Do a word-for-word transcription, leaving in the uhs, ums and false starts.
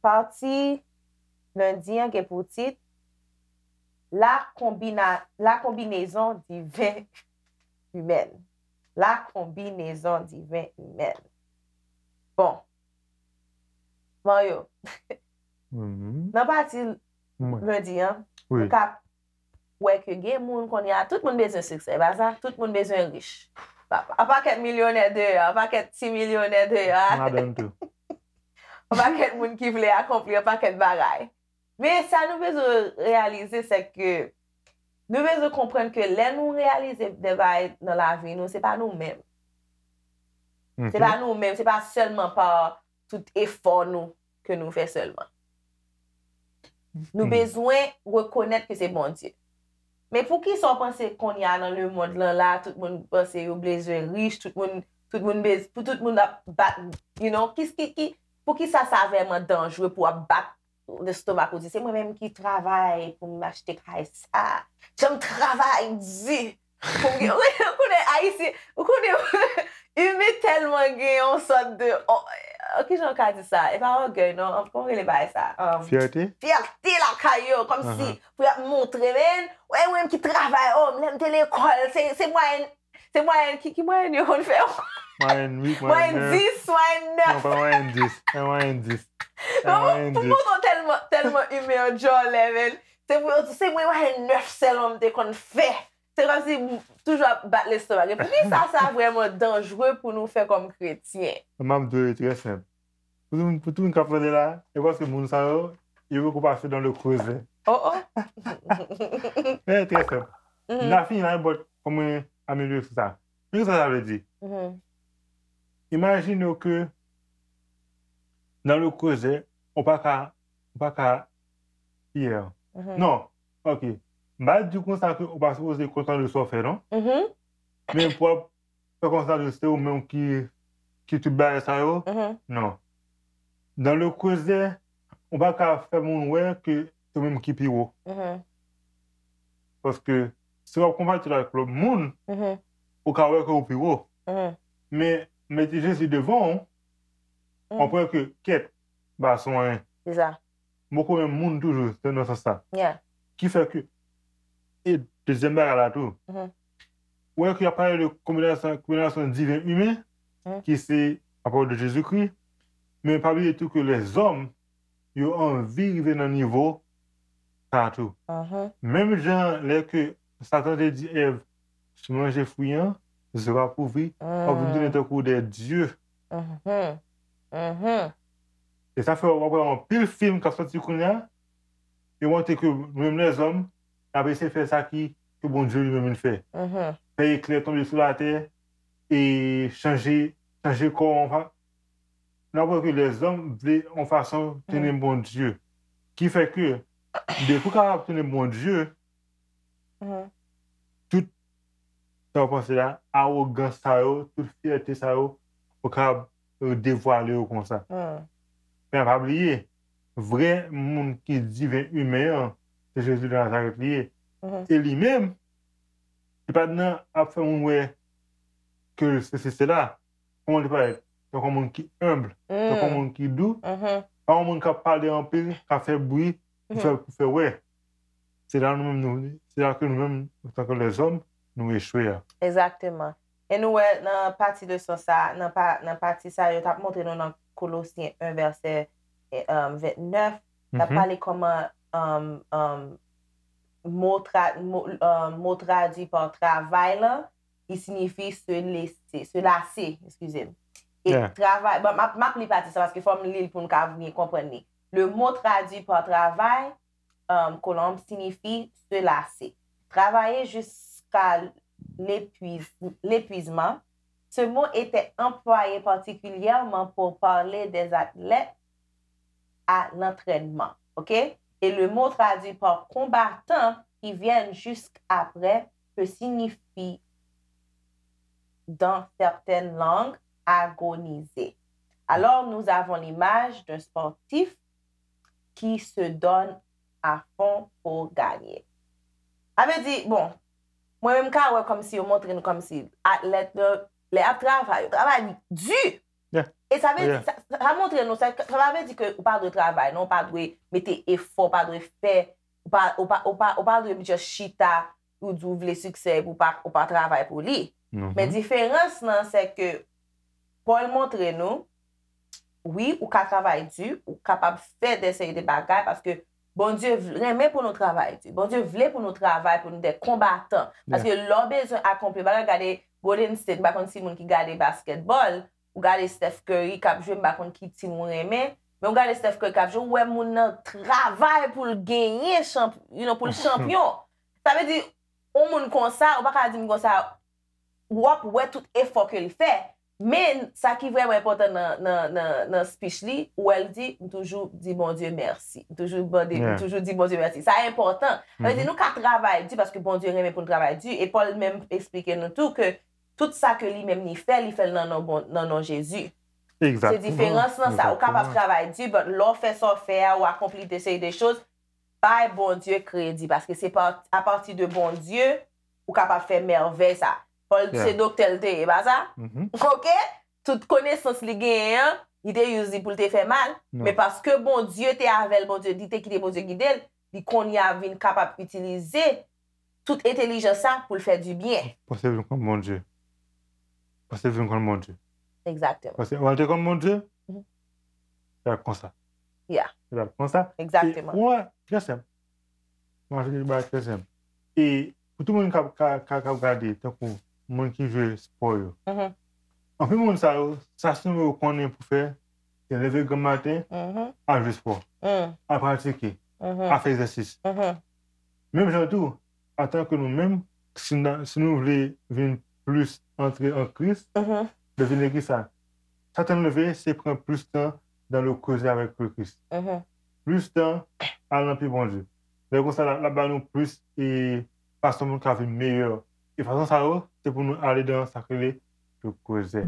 Pati lendi an gen pou tit La combina- la combinaison divine humaine. La combinaison divine humaine. Bon. Mario, Mhm. Nan pati Mwen. Lendi an, Wi. Ou ka wè ke gen moun kounye a, tout moun bezwen siksè, e pa sa? Tout moun bezwen rich. Pa- An pakèt milyonè deyò, an pakèt ti milyonè deyò. Madanm tou. An pakèt moun ki vle akonpli an pakèt bagay. Men sa nou bezwen reyalize, se ke nou bezwen konprann ke lè nou reyalize de bagay nan lavi nou, se pa nou menm. Se pa nou menm, se pa sèlman pa tout efò nou ke nou fè sèlman. Nou bezwen rekonèt ke se Bondye. Men poukisa w panse kounye a nan lemonn lan la, tout moun panse yo bezwen rich, tout moun, tout moun bez, pou tout moun ap bat, you know, ki, ki, ki, poukisa sa vrèman danjre pou w ap bat lestomak ou di, se mwen menm ki travay pou m achte kay sa. Jan m travay di pou m gen, ou konnen Ayisyen, ou konnen, imen tèlman gen yon sòt de, oh, oh, kijan w ka di sa? E pa ògèy, non, kòman rele bagay sa? Um, Fyète? Fyète lakay yo, kòmsi pou y ap montre, men, wè, mwen menm ki travay, oh, lè m te lekòl, se, se mwayèn, se mwayèn, ki, ki mwayèn yo konn fè? Mwayèn uit, Mwayèn mwayèn nèf. dis, mwayèn Non, nèf. pa mwayèn dis. E mwayèn dis. E Non, mwayèn pou dis. Mouton tèlman, tèlman imen an djòlè, men. Se pou yo di, se mwen, mwayèn nèf sèlman m te konn fè. Se kòmsi m toujou ap bat lestomak. E poukisa sa vrèman danjre pou nou fè kòm kretyen? M ap di w, trè senp. Pou tout, pou tout moun k ap tande la, e paske moun sa yo, yo poko pase dans le creuset. Oh, oh. E trè senp. N a fini la, but fò mwen amelyore sou sa. Men sa sa vle di? Mhm. Imajine w ke dans le creuset, ou pa ka, ou pa ka, yeah. Mhm. Non, ok. M pa di konsa ke ou pa sipoze kontan de sa w fè, non? Mhm. Men pou ap fè konsa de se ou menm ki, ki tout bagay sa yo, Mhm. non. Dans le creuset, ou pa ka fè moun wè ke se ou menm ki pi wo. Mhm. Paske si w ap konpare tèt avèk lòt moun, Mhm. ou ka wè ke ou pi wo. Mhm. Men mete Jezi devan w, Mm. w ap wè ke kèt, ba son anyen. Se sa. M poko menm moun toujou, se nan sans sa. Yeah. Ki fè ke, e dezyèm bagay la tou, Mhm. ou wè ke y ap pale de kombinasyon, kombinasyon diven imen, Mhm. ki se apòt de Jezikri, men pa bliye tou ke lèzòm, yo anvi rive nan nivo sa tou. Mhm. Menm jan lè ke Satan te di Èv, si w manje fwi an, zye w ap ouvri, w ap vin tounen tankou de dye. Mhm. Mhm. E sa fè w ap wè anpil fim k ap sòti kounye a, yo montre ke nou menm lèzòm, n ap eseye fè sa ki, ke Bondye li menm li fè. Mhm. Fè eklè tonbe sou latè, e chanje, chanje kò an fa-, n ap wè ke lèzòm vle yon fason tounen Bondye. Ki fè ke, depi w kapab tounen Bondye, Mhm. tout sa w panse la, awogans sa yo, tout fyète sa yo, ou kapab, euh, devwale yo konsa. Mhm. Men pa bliye, vrè moun ki diven imen an, se Jezi de Nazarèt li ye. Mhm. E li menm, li pa t nan ap fè moun wè ke sesi sela. Kòman li parèt? Tankou yon moun ki enb, tankou yon Mhm. moun ki dou, Mhm. pa yon moun k ap pale anpil, k ap fè bri, pou fè, pou fè wè. Se la nou menm nou, se la ke nou menm, antanke lèzòm, nou echwe a. Egzakteman. E nou wè nan pati leson sa, nan pa, nan pati sa, yo t ap montre nou nan Kolosyen en vèsè, eh, um, vennèf, t ap Mhm. pale kòman, um, um, mo, tra, mo, um, mo tradui pa travay lan, li siyifi se lese, se lase, eskize m. E Yeah. travay, bon, m ap, m ap li pati sa paske fò m li l pou m ka byen konprann li. Le mot traduit par travail, um, kolonn, siyifi se lase. Travailler jusqu'à l'épuis-, l'épuisement. Ce mot était employé particulièrement pour parler des athlètes à l'entraînement. OK? Et le mot traduit par combattant qui viennent jusqu'après peut signifier, dans certaines langues, agoniser. Alors, nous avons l'image d'un sportif qui se donne à fond pour gagner. Sa vle di, bon, mwen menm ka wè kòmsi yo montre nou kòmsi atlèt yo, lè y ap travay, yo travay di. Yeah. E sa vle Yeah. di, sa, sa montre nou, sa, sa pa vle di ke ou pa dwe travay, non, ou pa dwe mete efò, ou pa dwe fè, ou pa, ou pa, ou pa, ou pa dwe just chita, ou di ou vle siksè, epi ou pa, ou pa travay pou li. Men diferans lan, se ke Pòl montre nou, wi, ou ka travay di, ou kapab fè de seri de bagay, paske Bondye vle, renmen pou nou travay di. Bondye vle pou nou travay, pou nou de konbatan. Paske lè w bezwen akonpli bagay, gade Golden State, m pa konn si moun ki gade basketball, ou gade Steph Curry k ap jwe, m pa konn ki team ou renmen, men ou gade Steph Curry k ap jwe, ou wè moun nan travay pou l genyen, chanp, you know, pou l chanpyon. Sa vle di, yon moun konsa, ou pa ka di m konsa, w ap wè tout efò ke l fè. Men, sa ki vrèman enpòtan nan, nan, nan, nan speech li, ou wè l di, m toujou di Bondye mèsi. M toujou mande, m Yeah. toujou di Bondye mèsi. Sa enpòtan. Sa vle di, nou ka travay di paske Bondye renmen pou n travay di. E Pòl menm eksplike nou tou ke tout sa ke li menm li fè, li fè l nan non, bon, nan non Jezi. Se Egzakteman. diferans nan sa. Ou kapab Egzakteman. Travay di, but lè w fè sa w fè a, ou akonpli de seri de choz, bay Bondye kredi, paske se pa apati de Bondye ou kapab fè mèvèy sa. Pòl Yeah. se doktè l te ye, pa sa? Mhm. Ok? Tout konesans li genyen an, li te use li pou l te fè mal, Non. men paske Bondye te avè l, Bondye, li te kite Bondye gide l, li kounye a vin kapab itilize tout entèlijans sa pou l fè di byen. Panse vin konn Bondye. Panse vin konn Bondye. Egzakteman. Panse w te konn Bondye. Mhm. Fè konsa. Yeah. Fè konsa. Egzakteman. E, wè, trè senp. Mwen, se ba trè senp. E pou tout moun k ap, ka, ka, k ap gade, tankou moun ki jwe spò yo. Mhm. Anpil moun sa yo, sa sèlman yo konnen pou fè, se leve granm maten, Mhm. al jwe spò, Mm. al pratike, Mhm. al fè egzèsis. Mhm. Menm jan tou, antanke nou menm, si, n a- si nou vle vin plis antre an Kris, Mhm. leve legliz sa. Sa tann leve, se pran plis tan dans le creuset avec le Christ. Mhm. Plis tan al nan pye Bondye. Lè konsa, l ap ba nou plis e fason pou nou ka vin meyè. E fason sa yo, se pou nou ale dan sa k rele le creuset.